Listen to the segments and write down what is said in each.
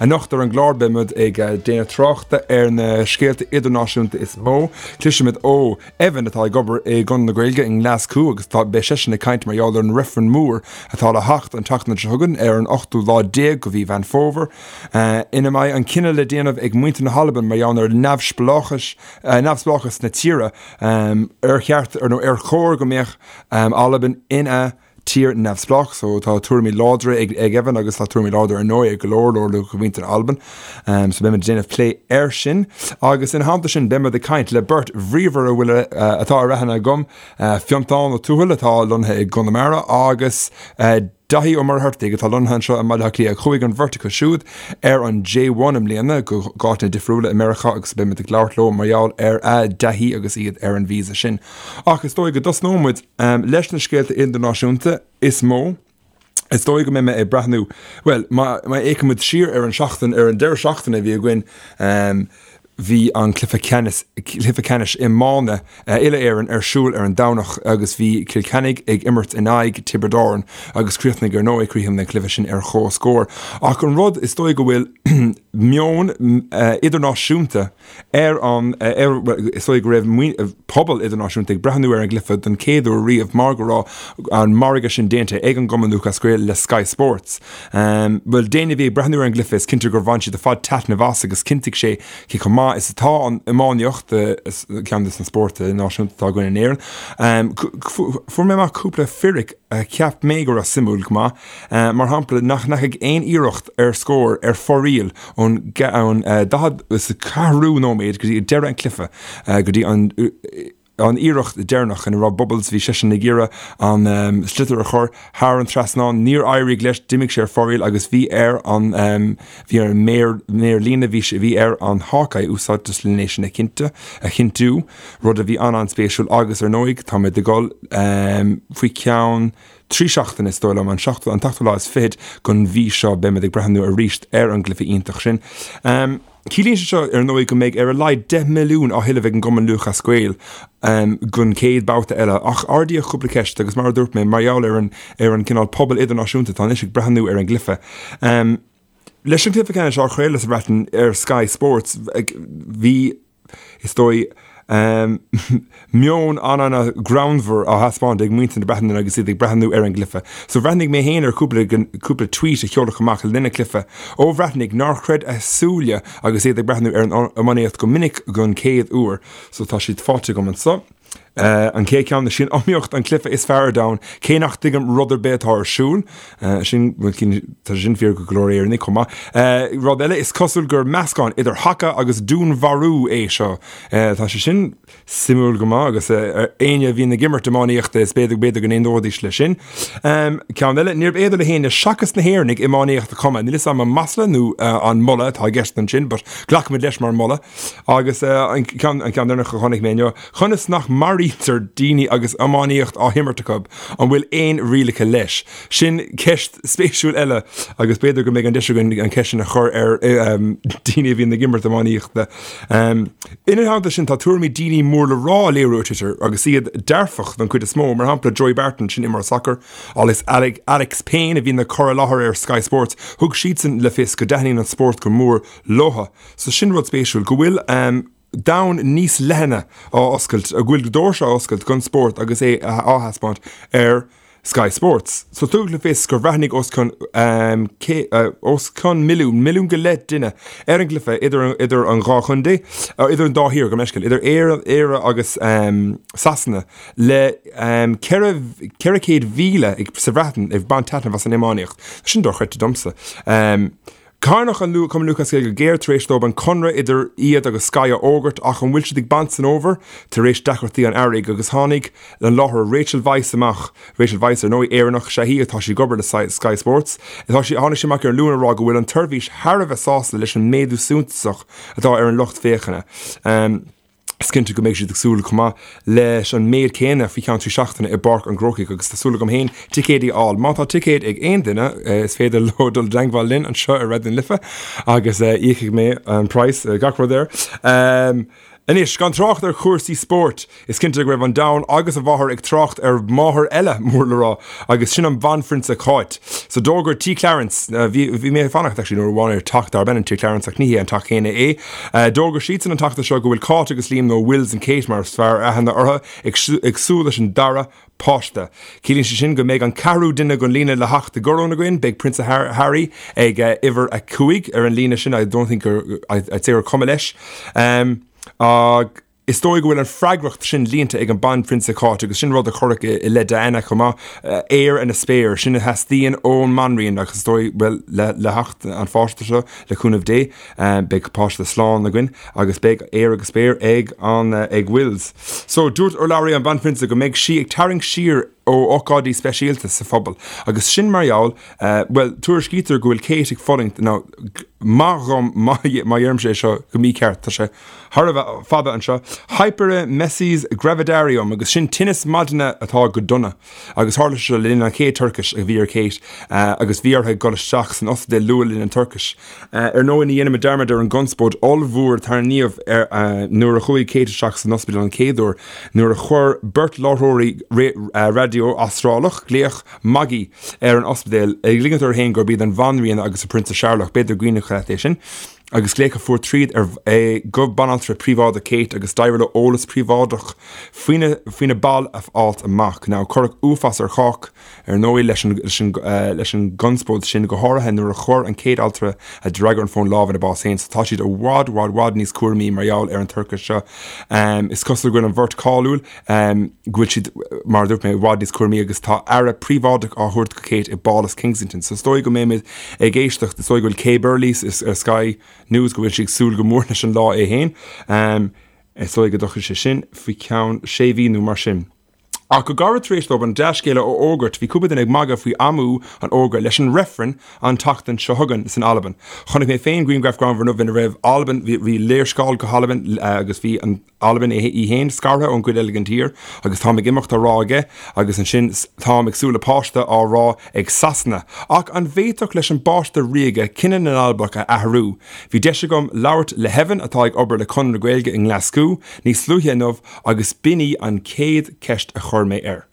Anocht ar an gclár beimid ag déanamh tráchta ar na scéalta idirnáisiúnta is mó. Cloisfimid ó Evan atá ag obair i gConradh na Gaeilge i nGlaschú agus tá beidh seisean ag caint mar gheall ar an reifreann mór atá le theacht an tseachtain seo chugainn ar an ochtú lá déag de mhí Mheán Fómhair ina mbeidh an cinneadh le déanamh ag muintir na hAlban mar gheall ar neamhspleáchas neamhspleáchas na tíre ar cheart nó ar chóir go mbeadh Albain ina tír neamhspleách so tá tuairimí láidre ag ag Evan agus tá tuairimí láidre ar ndóigh ag go leor leor de mhuintir Alban. Um, so beimid ag déanamh plé air sin agus ina theannta sin beimid ag caint le beirt bhríomhar a bhfuil uh, atá ar aithne agam, uh, Fiontán Ó Tuathail atá lonnaithe i gConamara agus uh, Daithí Ó Muircheartaigh atá lonnaithe anseo i mBaile Átha Cliath. Chuaigh an bheirt acu siúd ar an J1 i mbliana go áiteanna difriúla i Meiriceá agus beimid ag labhairt leo mar gheall ar a dtaithí agus iad ar an visa sin. Ach is dóigh go dtosnóidh muid Leis na scéalta idirnáisiúnta is mó, is dóigh go mbeidh mé ag breathnú, bhuel, má fhéachaimid siar ar an seachtain, ar an deireadh seachtaine a bhí againn, bhí an cluiche ceannais, cluiche ceannais iomána uile-Éireann ar siúl ar an Domhnach agus bhí Cill Chainnigh ag imirt in aghaidh Tiobraid Árann agus chríochnaigh ar ndóigh, chríochnaigh an cluiche sin ar chomhscór. Ach an rud is dóigh go bhfuil meon idirnáisiúnta, Ar an, ar, bhuel, is dóigh go raibh pobal idirnáisiúnta ag breathnú ar an gcluiche don chéad uair riamh mar go raibh an margadh sin déanta ag an gCumann Lúthchleas Gael le Sky Sports. Bhuel, d'éinne a bhí ag breathnú ar an gcluiche is cinnte gur bhain siad ar fad taitneamh as agus chinntigh sé cé chomh maith is atá an iománaíocht, ceann de na spóirt náisiúnta atá againn in Éirinn. Fuair mé amach cúpla fíric a cheap mé go raibh suimiúil go maith. Mar shampla, nach ndeachaigh aon iarracht ar scór ar fóraoil ón 44ú nóiméad go dtí deireadh an chluiche, go dtí an an iarracht deireanach ina raibh Bubbles, bhí seisean ag iarraidh an sliotar a chur thar an trasnán, níor éirigh leis, d'imigh sé ar fóraoil agus bhí ar an bhí ar an méar méar líne, bhí sé bhí ar an Hawkeye úsáid as lena sin a chinnte a chinntiú, rud a bhí an-an-spéisiúil agus ar ndóigh táimid ag dul faoi cheann 3 seachtaine, is dóigh liom, an seachtú, an t-ochtú lá is fichead den mhí seo, beimid ag breathnú arís ar an gcluiche iontach sin. Ciallaíonn sé seo, ar ndóigh, go mbeidh ar a laghad 10 milliún á thuilleamh ag an gCumann Lúthchleas Gael don chéad babhta eile, ach ardaíodh cúpla ceist agus mar a dúirt mé, mar gheall ar an ar an gcineál pobal idirnáisiúnta atá anois ag breathnú ar an gcluiche. Leis an gcluiche ceannais á chraoladh sa Bhreatain ar Sky Sports, bhí. is dóigh, meon an-an-ghreannmhar á thaispeáint ag muintir na Breataine agus iad ag breathnú ar an gcluiche. So bhreathnaigh mé féin ar chúpla cúpla tweet a sheoladh amach le linn an chluiche ó Bhreatnaigh nár chreid a súile agus iad ag breathnú ar an iománaíocht go minic don chéad uair. So tá siad faighte agam anseo. An chéad cheann, is í an iomaíocht an cluiche is fearr ar domhan, cé nach dtuigim rud ar bith atá ar siúl. Sin, tá sé sin fíor go leor Éireannaigh chomh maith. Rud eile, is cosúil gur meascán idir haca agus dúnmharú é seo. Tá sé sin suimiúil go maith agus éinne a bhíonn ag imirt iománaíochta is b'fhéidir b'fhéidir go n-aontóidís leis sin. Ceann eile, níorbh fhéidir le héinne seachas na hÉireannaigh iománaíocht a chumadh. Níl 'fhios a'm an masla nó an moladh atá i gceist ansin, but glacfaimid leis mar mholadh. Agus an ceann deireanach a chonaic mé inniu, conas nach maraítear daoine agus iománaíocht á himirt acu? An bhfuil aon rialacha leis? Sin ceist spéisiúil eile agus b'fhéidir go mbeidh an deis againn an ceist sin a chur ar daoine a bhíonn ag imirt iománaíochta. Ina theannta sin, tá tuairimí daoine mór le rá á léiriú ar Twitter agus iad dearfach don chuid is mó, mar shampla Joey Barton, sin imreoir sacair, agus Alex Payne a bhíonn ag cur i láthair ar Sky Sports, thug siadsan le fios go dtaitníonn an spórt go mór leo. So sin rud spéisiúil, go bhfuil domhan níos leithne á oscailt, go bhfuil doirse á oscailt don spórt agus é á thaispeáint ar Sky Sports. So tugadh le fios gur bhreathnaigh os cionn os cionn milliún, milliún go leith duine ar an gcluiche idir idir an dhá chontae, idir an dá thír, gabh mo leithscéal, idir Éire Éire agus Sasana le 400,000 sa Bhreatain ag baint taitneamh as an iománaíocht. Sin dochreidte domsa. Cáineadh an Cumann Lúthchleas Gael go géar tar éis dóibh an conradh idir iad agus Sky a fhógairt ach an bhfuil siad ag baint san fhómhar tar éis deacrachtaí an earraigh agus tháinig an láithreoir Rachel Weisz amach, Rachel Weisz ar ndóigh, Éireannach is ea í atá sí ag obair le Sky Sports, atá sí, tháinig sí amach ar an Luan a rá go bhfuil an tseirbhís thar a bheith sásta leis an méadú suntasach atá ar an lucht féachana. Is cinnte go mbeidh siad ag súil chomh maith leis an méid céanna faoi cheann 3 seachtaine i bPáirc an Chrócaigh agus tá súil agam féin ticéidí a fháil. Má tá ticéid ag aon duine is féidir leo dul i dteangmháil linn anseo ar Raidió na Life agus íocfaidh mé an praghas, gach rud air. Anois, gan trácht ar chúrsaí spóirt, is cinnte go raibh an domhan agus a mháthair ag trácht ar mháthair eile mór le rá, agus sin an Bhanphrionsa Cáit. So d'fhógair Tí Clarence, bhí, bhí mé ag fanacht actually nuair amháin ar teach darb ainm Tí Clarence ach ní hé an teach céanna é, d'fhógair siadsan an tseachtain seo go bhfuil Cáit agus Liam, nó Wills and Kate mar is fearr aithne orthu, ag, ag súil leis an dara páiste. Ciallaíonn sé sin go mbeidh an ceathrú duine den líne le theacht i gcoróin againn. Beidh Prionsa Harry ag uimhir a 5 ar an líne sin, I don't think gur, I'd say gur cuma leis. Ach is dóigh go bhfuil an freagracht sin líonta ag an Banphrionsa Cáit agus sin rud a cuireadh i leith Diana chomh maith, heir and a spare, sin a theastaíonn ón mBanríon agus is dóigh, bhuel, le theacht an pháiste seo, le cúnamh Dé, beidh páiste slán againn agus beidh heir agus spare ag an, ag Wills. So, dúirt urlabhraí an Bhanphrionsa go mbeidh sí ag tarraingt siar ó ócáidí speisialta sa phobal agus sin mar gheall, bhuel, tuairiscítear go bhfuil Kate ag fulaingt, now, maith dhom má dheirimse é seo go mícheart, tá sé thar a bheith fada anseo, hyperemesis gravidarium agus sin tinneas maidine atá go dona agus tharla sé seo le linn an chéad toirchis a bhí ar Kate agus bhí uirthi dul isteach san ospidéal luath le linn an toirchis. Ar ndóigh, ní dhéanfaidh muid dearmad ar an gconspóid ollmhór a tarraingíodh nuair a chuaigh Kate isteach san ospidéal an chéad uair, nuair a chuir beirt láithreoirí raidió Astrálach glaoch magaidh ar an ospidéal, ag ligint orthu féin gurb iad an Bhanríon agus an Prionsa Searlach, b'fhéidir go gcuimhneach leat é sin, agus glaoch a fuair tríd ar go banaltra príobháideach Kate agus d'éirigh leo eolas príobháideach faoina baill a fháilt amach. Now, cuireadh uafás ar chách. Ar ndóigh, leis leis an gconspóid sin, go háirithe nuair a chuir an chéad altra a d'fhreagair an fón lámh ina bás féin, so tá siad i bhfad, bhfad, bhfad níos cúramaí mar gheall ar an toircheas seo. Is cosúil go bhfuil an bheirt cáiliúil, go bhfuil siad, mar a dúirt mé, i bhfad níos cúramaí agus tá aire príobháideach á thabhairt do Kate i bPálas Kensington. So is dóigh go mbeimid ag éisteacht, is dóigh go bhfuil Kay Burley ar Sky News, go bhfuil sí ag súil go mór leis an lá é féin. Is dóigh go dtiocfaidh sé sin faoi cheann sé mhí nó mar sin. Ach go gairid tar éis dóibh an dea-scéala a fhógairt, bhí cúpla duine ag magadh faoi amú an fhógra leis an reifreann an tseachtain seo chugainn san Albain. Chonaic mé féin grianghraf greannmhar inniu ina raibh Albain, bhí léarscáil go hAlbain agus bhí an Albain í féin scartha ón gcuid eile den tír agus táim ag imeacht á rá aige agus ansin táim ag súil le páiste á rá ag Sasana. Ach an bhféadfadh leis an bpáiste ríoga cinneadh na nAlbach a athrú? Bhí deis agam labhairt le hEvan atá ag obair le Conradh na Gaeilge i nGlaschú níos luaithe inniu Agus b'in í an chéad cheist a chuir mé air.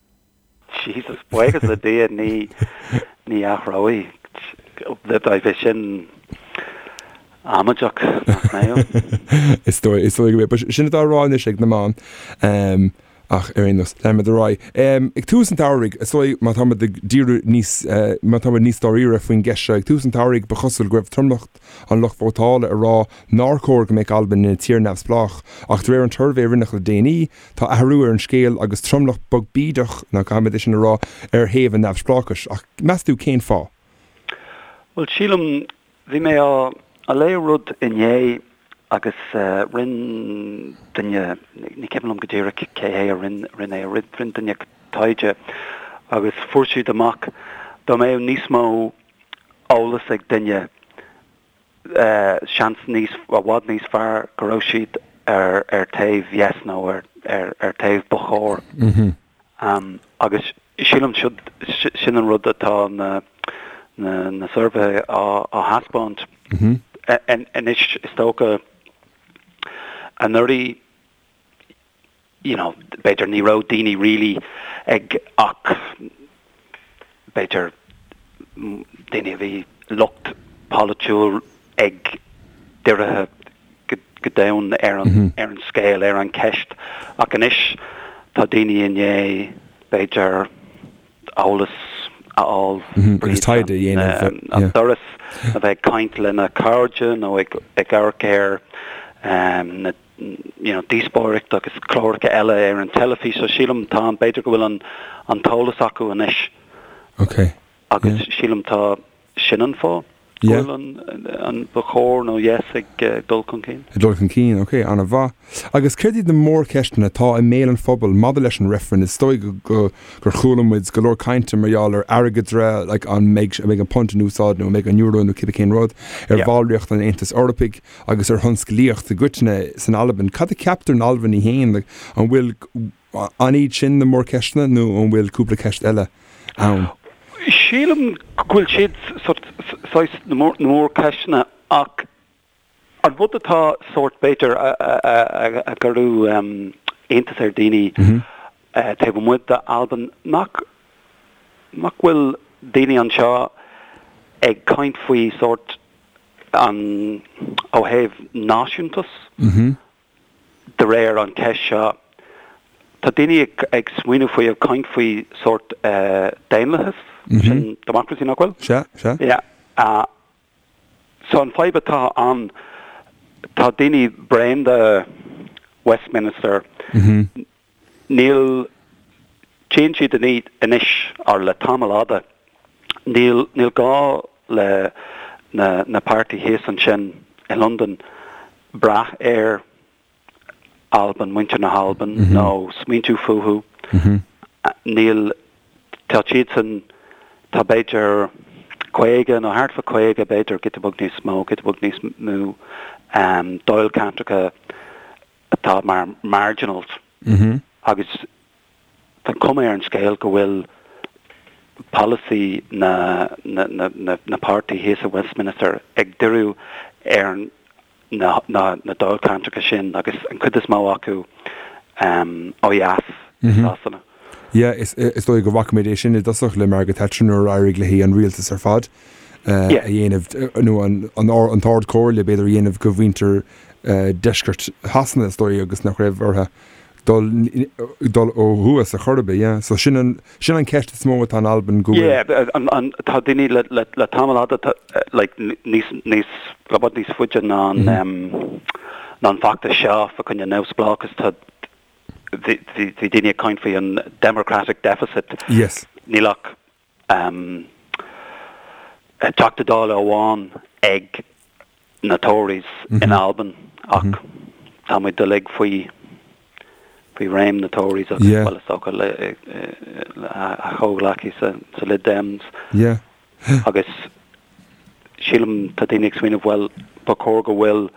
Jesus, buíochas le Dia ní ní athróidh. Bheadh sin amaideach, nach mbeadh? Is dóigh, is dóigh go mbeadh. Sin atá á rá anois ag na meáin. Ach ar aon nós, leanfaimid ar aghaidh. Ag tús an tsamhraidh, is dóigh má táimid ag díriú níos, má táimid níos dáiríre faoin gceist seo, ag tús an tsamhraidh ba chosúil go raibh tromlach an lucht vótála ag rá nár chóir go mbeadh Albain ina tír neamhspleách, ach de réir an tsuirbhé a rinneadh le déanaí, tá athrú ar an scéal agus tromlach beag bídeach, nó caithfimid é sin a rá, ar thaobh an neamhspleáchais. Ach meas tú cén fáth? Bhuel, sílim, bhí mé á léamh rud inné agus rinn duine, ní cuimhin liom go díreach cé hé a rinn é, rinn duine taighde agus fuair siad amach dá mbeadh níos mó eolas ag duine, seans níos, i bhfad níos fearr go raibh siad ar ar taobh yes nó ar ar ar taobh ba chóir. Agus sílim siod sin an rud atá na na na suirbhéithe á á thaispeáint. Anois is dócha anuraidh you know, b'fhéidir ní raibh daoine really ag ach b'fhéidir daoine a bhí lucht polaitiúil ag dírithe go domhain ar an ar an scéal, ar an cheist. Ach anois tá daoine i ndiaidh b'fhéidir eolas a fháil Agus taighde a dhéanamh, an doras, a bheith ag caint lena cairde nó ag ag amharc ar na you know, díospóireacht agus cláracha eile ar an teilifís, so sílim tá, b'fhéidir go bhfuil an, an t-eolas acu anois. Ok. Agus yeah. sílim tá sin an fáth go bhfuil an, an ba chóir nó yes ag uh, dul chun cinn. Ag dul chun cinn, ok, an-mhaith. Agus céard iad na mórcheisteanna atá i mbéal an phobail maidir leis an reifreann? Is dóigh go, go, gur chuala muid go leor cainte mar gheall ar airgeadra, like, an mbeidh, an mbeidh an punt in úsáid nó an mbeidh an euro nó cibé cén rud, ar yeah. bhallraíocht an Aontais Eorpaigh. Agus ar thionsclaíocht i gcoitinne san Albain, cad a cheaptar in Albain í féin? An bhfuil, an iad sin na mórcheisteanna nó an bhfuil cúpla ceist eile ann? Sílim go bhfuil siad saghas na mórcheisteanna ach. An rud atá sórt, b'fhéidir, a gcuireadh iontas ar daoine taobh amuigh d'Albain, nach nach bhfuil daoine anseo ag caint faoi sórt an ó thaobh náisiúntas de réir an cheist seo. Tá daoine ag smaoineamh faoi, ag caint faoi sórt daonlathas, sin democracy nach bhfuil? Sea, sea. Yeah. So an fadhb atá ann, tá daoine bréan de Westminster, níl, tchíonn siad anois, or le tamall fhada, níl, níl gá le na, na páirtí thíos ansin i Londain brath ar Albain, muintir na hAlban, nó smaointiú fúthu. Níl, tá siadsan, tá b'fhéidir 50 nó thart fá 50, b'fhéidir giota beag níos mó, giota beag níos mó, dáilcheantracha atá mar marginals agus tá cuma ar an scéal go bhfuil polasaí na, na, na, na páirtí thíos i Westminster ag díriú ar an na dáilcheantracha sin agus an chuid is mó acu ó dheas i Sasana. Yeah, is dóigh go bhfaca muid é sin i dtosach le Margaret Thatcher nuair a éirigh léi an rialtas ar fad a dhéanamh, nó an tArd Chomhairle b'fhéidir a dhéanamh de mhuintir deisceart Shasana is dóigh agus nach raibh orthu dul dul ó thuas ar chor ar bith, yeah. So sin an, sin an ceist is mó atá in Albain go bhfuil. Yeah, an, an, tá daoine le, le, le tamall fhada, tá, like, níos, níos, le bhfad níos faide ná an, em, ná an feachtas seo fá choinne neamhspleáchas, tá, bhí, bhí, bhí daoine ag caint faoi an democratic deficit. Yes. Níl ach, em, Teachta Dála amháin ag na Tories in Albain ach tá muid uilig faoi faoi réim na Tories agus bhuel is dócha le a chomhghleacaí sa sa Lib Dems agus sílim tá daoine ag smaoineamh bhuel ba chóir go bhfuil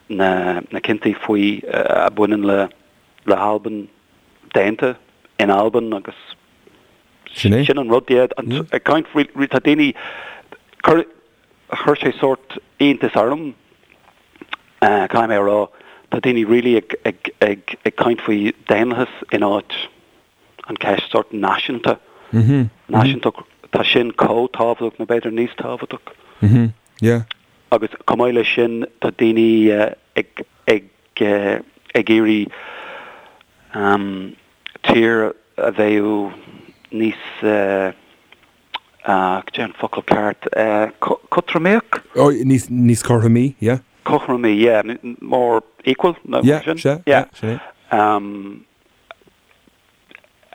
na na cinntí faoi a bhaineann le le hAlbain déanta in Albain agus Sin é. sin an rud yeah ag caint faoi tá daoine cur Chuir sé sórt iontas orm, caithfidh mé a rá. Tá daoine really ag, ag, ag, ag caint faoi daonlathas in áit an ceist sórt náisiúnta. Náisiúntacht, tá sin chomh tábhachtach nó b'fhéidir níos tábhachtach. Yeah. Agus chomh maith leis sin, tá daoine ag, ag, ag iarraidh tír a bheadh níos, Cad é an focal ceart? Cothromaíoch? Oh, níos, níos cothromaí, yeah. Cothromaí, yeah. More equal, nó Yeah, sin? sea, yeah, sin é. Um,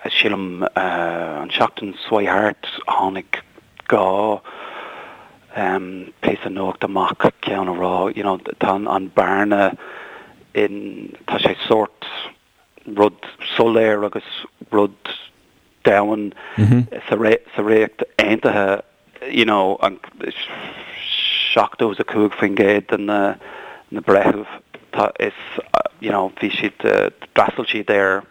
sílim, an seachtain seo thart, tháinig 2 um, píosa nuachta amach, ceann a rá, you know, tá an bearna in, tá sé sórt rud soiléir agus rud domhain sa Ríocht Aontaithe, you know, an 75% de na na breithimh tá is you know bhí siad d'fhreastail siad ar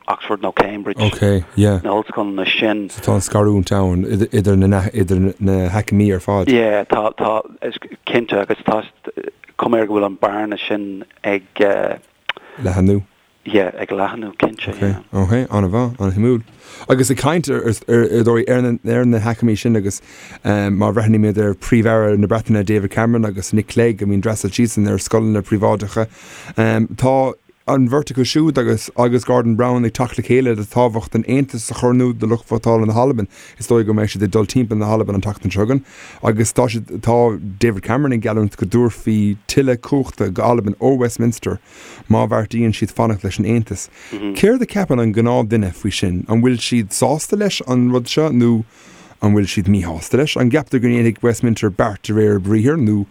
Oxford nó Cambridge Ok, yeah. na hollscoileanna sin. So tá an scarúint ann idir na idir na haicmí ar fad. Yeah, tá tá is cinnte agus tá cuma air go bhfuil an bearna sin ag Leathanú. Yeah, ag leathanú, cinnte, Ok, yeah. ok, an-mhaith, an-shuimiúil. Agus ag caint ar, ar, ar dóigh, ar na, ar na haicmí sin agus má bhreathnaímid ar Príomh-Aire na Breataine David Cameron agus Nick Clegg, I mean d'fhreastail siadsan ar scoileanna príobháideacha, tá an bheirt acu siúd agus agus Gordon Brown ag teacht le chéile le tábhacht an Aontais a chur in iúl do lucht vótála na hAlban. Is dóigh go mbeidh siad ag dul timpeall na hAlban an tseachtain seo chugainn agus tá siad, tá David Cameron ag geallúint go dtabharfaí tuilleadh cumhachta go Albain ó Westminster má bheartaíonn siad fanacht leis an Aontas. Céard a cheapann an gnáthduine faoi sin? An bhfuil siad sásta leis an rud seo nó an bhfuil siad míshásta leis? An gceaptar go ndéanfaidh Westminster beart de réir a briathair nó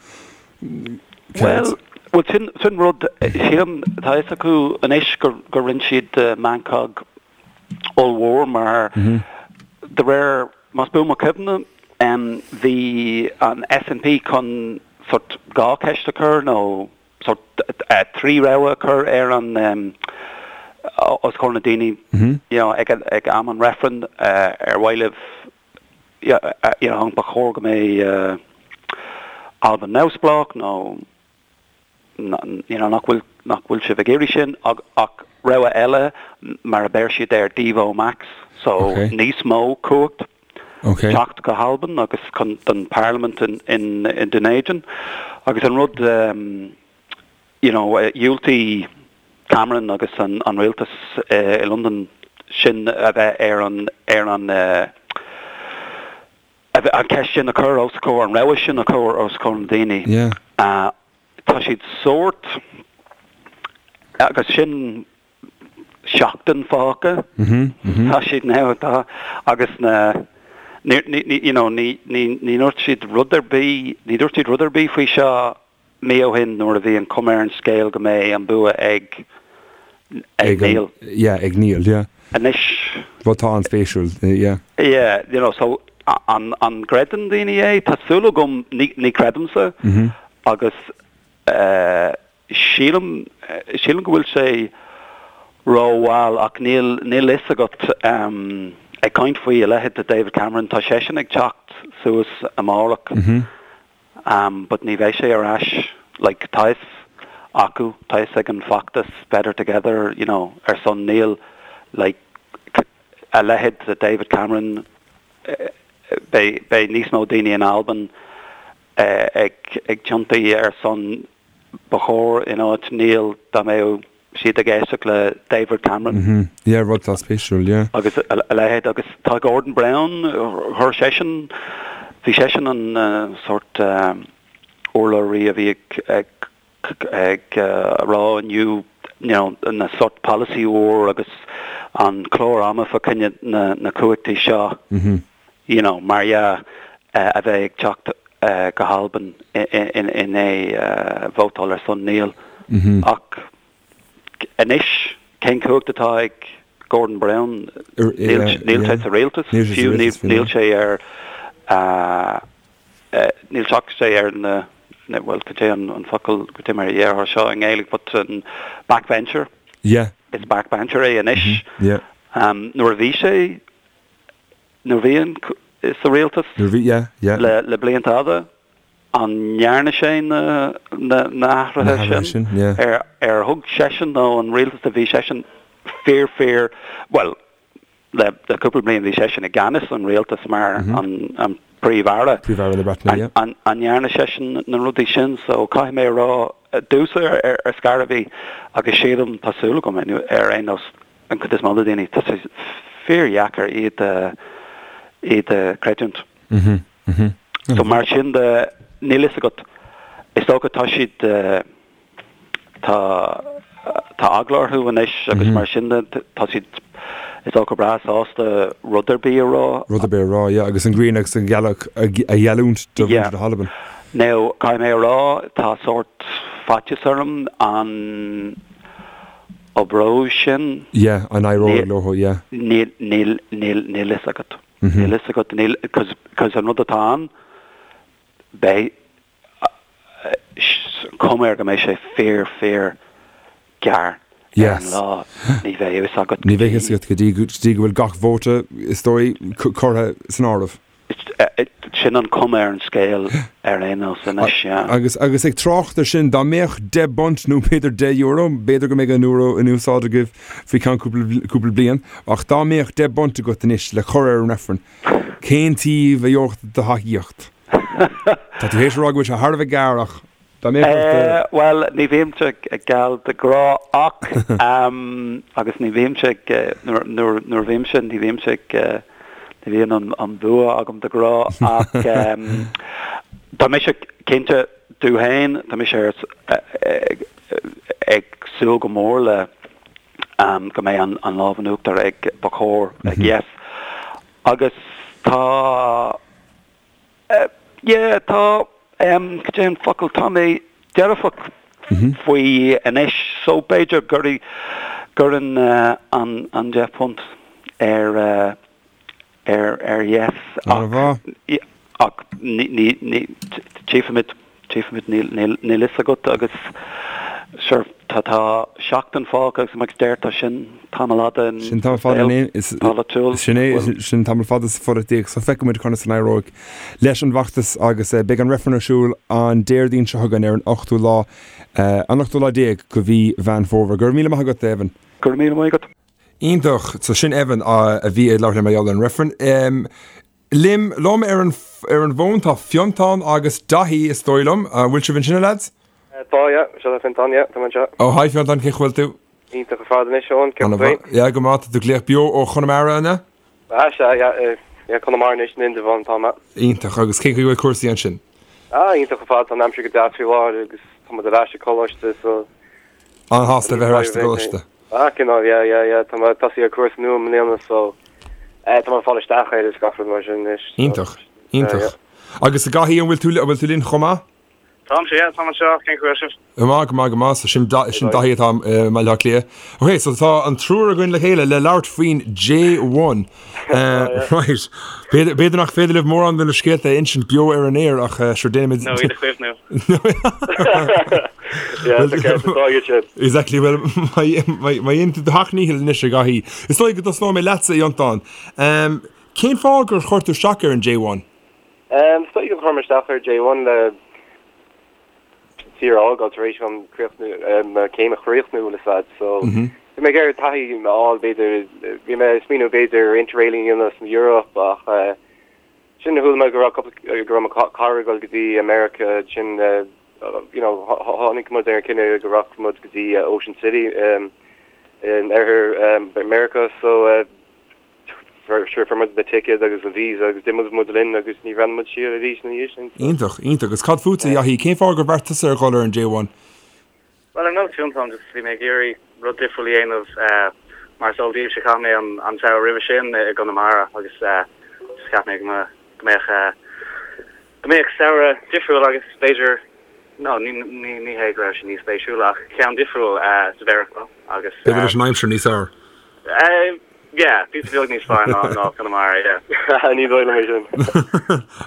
céard? Bhuel, sin, sin rud, sílim, tá a fhios acu anois gur, gur rinne siad meancóg ollmhór mar de réir, más buan mo chuimhne, bhí an SNP chun sort 2 cheist a chur nó sort 3 rogha a chur ar an os comhair na daoine you know ag ag am an reifrinn ar mhaith libh you know ba chóir go mbeidh. Albain neamhspleách nó you know nach bhfuil nach bhfuil sibh ag iarraidh sin ach rogha eile mar a bheir siad air Devo Max so okay. níos mó cumhacht okay. teacht go hAlbain agus chun don Parliament in, in, in Dún Éideann agus an rud um, you know dhiúltaigh Cameron agus an, an rialtas uh, i Londain sin a bheith ar an ar an uh, an ceist sin a chur os comhair, an rogha sin a chur os comhair na daoine. Yeah. Tá siad sórt, agus sin seachtain fágtha, tá siad now, tá, agus na, ní, ní, you know, ní, ní, ní dúirt siad rud ar bith, ní dúirt siad rud ar bith faoi seo mí ó shin nuair a bhí an cuma ar an scéal go mbeidh an bua ag ag Níl. Yeah, ag Níl, yeah. Anois. Rud atá an-spéisiúil, yeah. Yeah, you know, so an an gcreideann daoine é? Tá súil agam, ní ní chreidimse agus eh sílim sílim go bhfuil sé rómhall ach níl níl fhios agat em ag caint faoi a leithéid de David Cameron, tá seisean ag teacht suas amárach. But ní bheidh sé ar ais, like, tá fhios acu, tá fhios ag an bhfeachtas Better Together, you know, ar son Níl, like, a leithéid de David Cameron, beidh, beidh níos mó daoine in Albain ag, ag tiontaí ar son ba chóir in áit Níl dá mbeadh siad ag éisteacht le David Cameron. Mm-hmm. Yeah, rud atá spéisiúil, yeah. Agus a leithéid, agus tá Gordon Brown, chuir seisean, bhí seisean an sórt urlabhraí a bhí ag, ag, ag rá inniu, you know, na sórt polasaí úr agus an clár ama fá choinne na, na cumhachtaí seo. Mm-hmm. you know, mar dhea, a bheith ag teacht go hAlbain i ndiaidh vótáil ar son Níl. Ach anois, cén cumhacht atá ag Gordon Brown? Níl sé sa rialtas, fiú níl sé ar, níl sé ar na, bhuel, cad é an focal, cad é mar a déarfá seo i nGaeilge, but an backbencher. Yeah. Is backbencher é anois. Yeah. Nuair a bhí sé Nuair a bhí an sa rialtas Nuair a bhí, yeah, yeah. le le blianta fhada, an ndearna sé na na na hathruithe Na hathruithe sin? sin, yeah. Ar ar thug seisean nó an rialtas a bhí seisean fíor fíor, bhuel, le le cúpla bliain bhí seisean i gceannas an rialtas mar an an Príomh-Aire. Príomh-Aire na Breataine, yeah. An an ndearna seisean na rudaí sin? So caithfidh mé a rá, domhsa ar ar scor ar bith agus sílim, tá súil agam ar aon nós, an chuid is mó de daoine, tá sé fíordheacair iad a, iad a chreidiúint. So mar sin de, níl fhios agat, is dócha tá siad, tá, tá eagla orthu anois agus mar sin de, tá siad, is dócha breá sásta rud ar bith a rá. Rud ar bith a rá, yeah, agus an ghrian agus an ghealach a gheallúint do mhuintir na hAlban. Now, caithfidh mé a rá, tá sórt faitíos orm an, Oibreoidh sin. Yeah, an éireoidh leo, yeah. Níl, níl, níl, níl fhios agat. Níl fhios agat, níl, cos, cos an rud atá ann, beidh, cuma air go mbeidh sé fíor, fíor gearr ar an lá. Ní bheidh fhios agat go dtí. Ní bheidh fhios agat go dtí, go dtí go bhfuil gach vóta, is dóigh, curtha san áireamh. Sin an cuma ar an scéal ar aon nós anois, yeah. Agus, agus ag trácht ar sin, dá mbeadh 10 bpunt nó b'fhéidir 10 euro, b'fhéidir go mbeidh an euro in úsáid agaibh faoi cheann cúpla, cúpla bliain, ach dá mbeadh 10 bpunt agat anois le cur ar an reifreann, cén taobh a gheobhadh do thacaíocht? Tá tú théis a rá go bhfuil sé thar a bheith gearr ach dá mbeadh ort do. Bhuel, ní bhímse geal de ghnáth ach, agus ní bhímse ag, nuair, nuair, nuair a bhímse, ní bhímse ag, ní bhíonn an, an bua agam de ghnáth ach tá mise cinnte domh féin, tá mise ar, ag súil go mór le go mbeidh an, an lámh in uachtar ag, ba chóir, ag Yes. Agus tá. Yeah, tá, cad é an focal, tá mé dearfach faoi anois so b'fhéidir gur gcuirfinn an an £10 ar ar ar Yes ach ach ní ní ní tchífimid, tchífimid, níl níl níl fhios agat agus sure. Tá tá seachtain fágtha agus mar a deir tú sin tamall fada in Sin tamall fada in saol polaitiúil. Sin é, sin tamall fada sa pholaitíocht so feicfidh muid conas a n-éireoidh leis an bhfeachtas agus beidh an reifreann ar siúl an Déardaoin seo chugainn ar an ochtú lá, an ochtú lá déag de mhí Mheán Fómhair. Go raibh míle maith agat, Evan. Go raibh míle maith agat. Iontach. So sin Evan a bhí ag labhairt linn mar gheall ar an reifreann. Liom, liom ar an ar an bhfón tá Fiontán agus Daithí is dóigh liom. An bhfuil sibh ansin a lads? Tá, yeah. Seo é Fiontán, yeah. Tá mé anseo. Oh, hi Fiontán, cén chaoi a bhfuil tú? Iontach ar fad anois, Eoin, cén chaoi? Yeah, go maith, tá tú ag glaoch beo ó Chonamara, an ea? Ah, sea, yeah, yeah, Conamara anois, in Indreabhán atá mé. Iontach, agus cén chaoi a bhfuil cúrsaí ansin? Ah, iontach ar fad, tá an aimsir go deas faoi láthair agus tá muid ar ais ag coláiste, so. An-shásta a bheith ar ais sa gcoláiste. Ah, cineál, yeah, yeah, yeah, tá mé ag tosaí ar cúrsa nua i mbliana so eh, tá mé ag fáil isteach air is gach rud mar sin anois. Iontach, iontach. Agus a Dhaithí, an bhfuil tú, an bhfuil tú linn chomh maith? Táimse, yeah, táim anseo, cén chaoi a bhfuil sibh? Go maith, go maith, go maith. So sin, sin Daithí atá i mBaile Átha Cliath. Ok, so tá an triúr againn le chéile le labhairt faoin J1. Eh, right. B'fhéidir, b'fhéidir nach féidir libh mórán de na scéalta a insint beo ar an aer ach eh, sure déanaimid... Nó iad a chuimhniú. Yeah, tá ceart, tá iad sin. Exactly, well, má dhéanann tú do sheacht ndícheall anois a Dhaithí. Is dóigh go dtosnóidh mé leatsa, a Fhiontáin. Um, cén fáth gur chuir tú isteach ar an J1? Um, is dóigh gur chuir mé isteach ar J1 le tír a fhágáil tar éis dom críochnú, mo chéim a chríochnú le fad, so bhí mé ag iarraidh taithí a fháil b'fhéidir, bhí mé ag smaoineamh b'fhéidir interrailing a dhéanamh san Eoraip ach sin chuala mé go raibh cúpla, go raibh mo chara ag dul go dtí America sin you know tháinig muid ar an cinneadh go rachadh muid go dtí Ocean City in oirthear America so Sure, fuair muid na ticéid agus an visa agus d'imigh muid linn agus ní bhreathnaigh muid siar arís ina dhiaidh sin. Iontach, iontach. Agus cad fútsa, a Dhaithí? Cén fáth gur bheartaigh tusa ar dhul ar an J1? Bhuel, ar nós Fiontáin, just bhí mé ag iarraidh rud difriúil a dhéanamh. Mar is eol daoibhse, chaith mé an samhradh roimhe sin i gConamara agus just cheap mé go mbeadh go mbeadh samhradh difriúil agus b'fhéidir, no, ní ní hé go raibh sé níos spéisiúla ach ceann difriúil sa Mheiriceá agus. B'fhéidir leis an aimsir níos fearr. Yeah, píosa beag níos fearr ná ná Conamara, yeah. Ní dóigh liom é sin.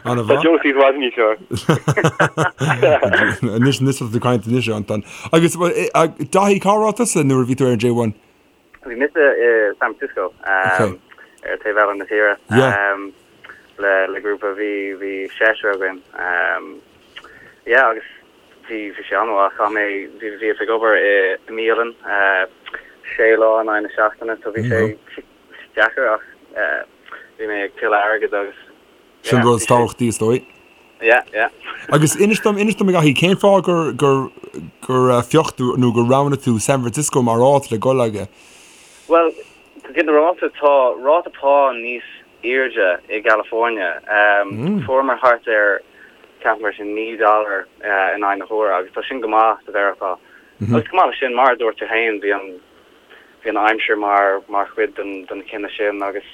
An-mhaith. Tá Josie i bhfad níos fearr. Anois, anois tá tú ag caint anois, Anton. Agus, Daithí, cá raibh tusa nuair a bhí tú ar an J1? Bhí mise i San Francisco, ar taobh eile na tíre, le le grúpa, bhí bhí seisear againn. Yeah, agus Bhí, bhí sé an-mhaith. Chaith mé, bhí, bhíos ag obair i mbialann sé lá in aghaidh na seachtaine so bhí sé deacair ach bhí mé ag tuilleadh airgid agus yeah. Sin rud is tábhachtaí is dóigh. Yeah, yeah. Agus inis dom, inis dom a Dhaithí, cén fáth gur, gur, gur phioc tú nó gur roghnaigh tú San Francisco mar áit le dul aige? Bhuel, go ginearálta tá ráta pá níos airde i gCalifornia. Fuaireamar thart ar, ceapaim go raibh sé 9 dollar in aghaidh na huaire agus tá sin go maith sa Mheiriceá. Agus chomh maith leis sin, mar a dúirt tú féin, bhí an, bhí an aimsir mar, mar chuid den, den chinneadh sin agus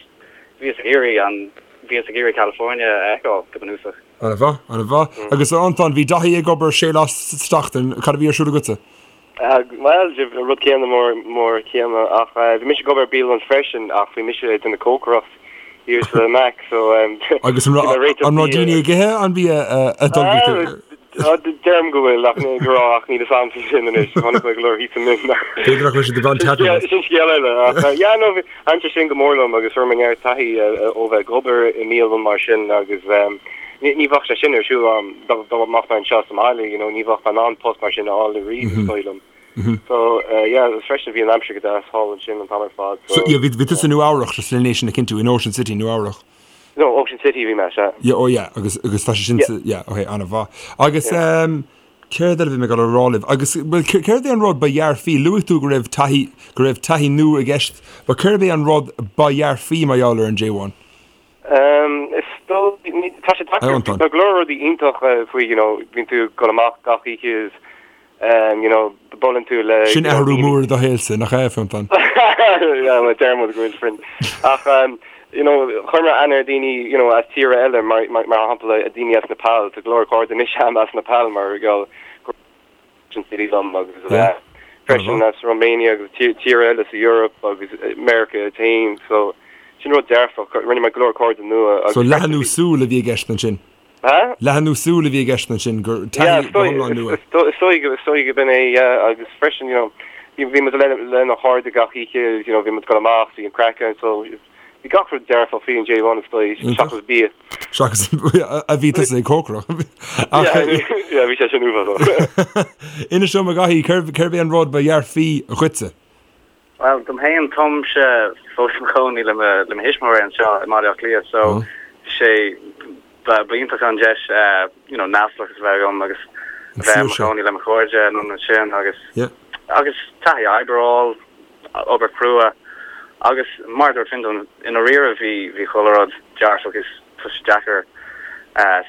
bhíos ag iarraidh an, bhíos ag iarraidh California a fheiceáil go bunúsach. An-mhaith, an-mhaith. Agus a Fhiontáin, bhí Daithí ag obair sé lá sa tseachtain, cad a bhí ar siúl agatsa? Bhuel, an rud céanna mór mór céanna ach bhí mise ag obair i bialann freisin ach bhí mise ag déanamh cócaireacht thiar sa Mac so Agus an raibh an raibh daoine ag ithe an bia a d'ullmhaigh tú? Deirim go bhfuil ach go raibh ach níl fhios a'm faoi sin anois chonaic mé go leor thíos ansin. B'fhéidir nach raibh siad ag baint taitneamh as. Sin scéal eile ach yeah no thaitin sé sin go mór liom agus fuair mé neart taithí ó bheith ag obair i mbialann mar sin agus ní bheadh sé sin ar siúl a'm dá mbeadh mé anseo sa mbaile, you know, ní bheadh mé in ann post mar sin a fháil ariamh is dóigh liom. So, yeah, agus freisin bhí an aimsir go deas thall ansin an t-am ar fad, so. So, yeah, bhí, bhí tusa i Nua Eabhrach, just len é sin a chinntiú, in Ocean City, Nua Eabhrach. No, Ocean City bhí mé, sea. Yeah, oh yeah, agus, agus tá sé sin sa, yeah, okay, an-mhaith. Agus, yeah. um, céard eile a bhí mé ag dul a rá libh? Agus, well, céard é an rud ba dhearfaí? Luaigh tú go raibh taithí, go raibh taithí nua i gceist, but céard é an rud ba dhearfaí mar gheall ar an J1? Is dóigh, tá sé deacair, tá go leor rudaí iontach faoi, you know, bíonn tú ag dul amach gach oíche is, you know, buaileann tú le. Sin athrú mór i do shaolsa, nach ea, Fionntán? Yeah, well, deir muid go bhfuil friend. Ach, you know, chuir mé aithne ar daoine, you know, as tíortha eile, mar, mar shampla, daoine as Nepal, tá go leor cairde anois a'm as Nepal mar gheall go Ocean City liom agus freisin as Romania agus tíortha eile sa Eoraip agus Meiriceá féin so sin rud dearfach rinne mé go leor cairde nua agus So leathnú súl a bhí i gceist ansin? Ha? Leathnú súl a bhí i gceist ansin, gur taithí go hiomlán nua. Is dóigh is dóigh go b'in é, yeah, agus freisin, you know, bhí bhí muid le lenár chairde gach oíche, you know, bhí muid ag dul amach, bhí an craic ann, so bhí gach rud dearfach faoi an J1 is dóigh, seachas bia. Seachas a bhí tusa ag cócaireacht. Ach yeah, bhí sé sin uafásach. Inis dom a Dhaithí, cérbh cérbh é an rud ba dhearfaí dhuitse? Bhuel, dom féin, táimse fós i mo chónaí le mo le mo thuismitheoirí anseo i mBaile Átha Cliath so sé ba ba iontach an deis you know neamhspleáchas a bheith agam agus a bheith i mo chónaí le mo chairde anonn ansin agus agus taithí oibre a fháil, obair chrua agus mar a dúirt Fionntán, i ndáiríre bhí bhí chuile rud dearfach is tá sé deacair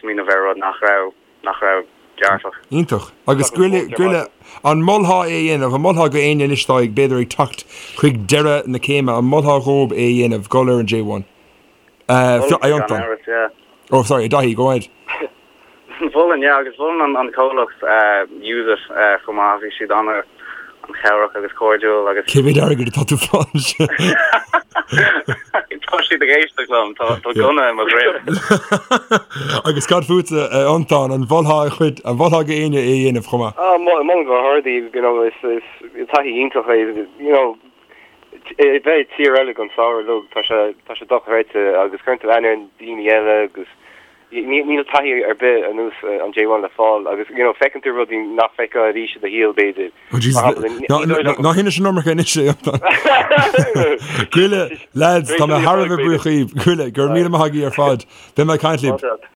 smaoineamh ar rud nach raibh nach raibh dearfach. Iontach. Agus Goille, Goille, an molfá é a dhéanamh, an molfá go éinne anois atá ag, b'fhéidir ag teacht chuig deireadh na céime, an molfá dhóib é a dhéanamh, dul ar an J1? Uh, Mholfainn gan Fionntán. amhras, yeah. Oh, sorry, Daithí, go ahead. Mholfainn, yeah, agus mholfainn an comhlacht uh, Use It uh, chomh maith, bhí siad ana an chabhrach agus cairdiúil agus. Cé mhéad airgead atá tú fáil ansin? Tá siad ag éisteacht liom, tá gunna i mo dhroim. Agus cad fútsa, a Fhionntán, an mholfá a chuid, an mholfá go éinne é a dhéanamh chomh maith? Ah, molaim go hard é, you know, is taithí iontach é, you know, bheith i tír eile don samhradh uilig, tá sé, tá sé dochreidte agus cuireann tú aithne ar daoine eile agus Níl taithí ar bith ar nós an J1 le fáil agus you know feiceann tú rudaí nach bhfeicfeá arís i do shaol b'fhéidir. Oh Jesus, Mar shampla, ní ná dóigh liom ná hinis an iomarca anois é Fionntán. Goille, lads, tá mé thar a bheith buíoch dhíbh. Goille, go raibh míle maith agaibh ar fad. Beidh mé ag caint libh.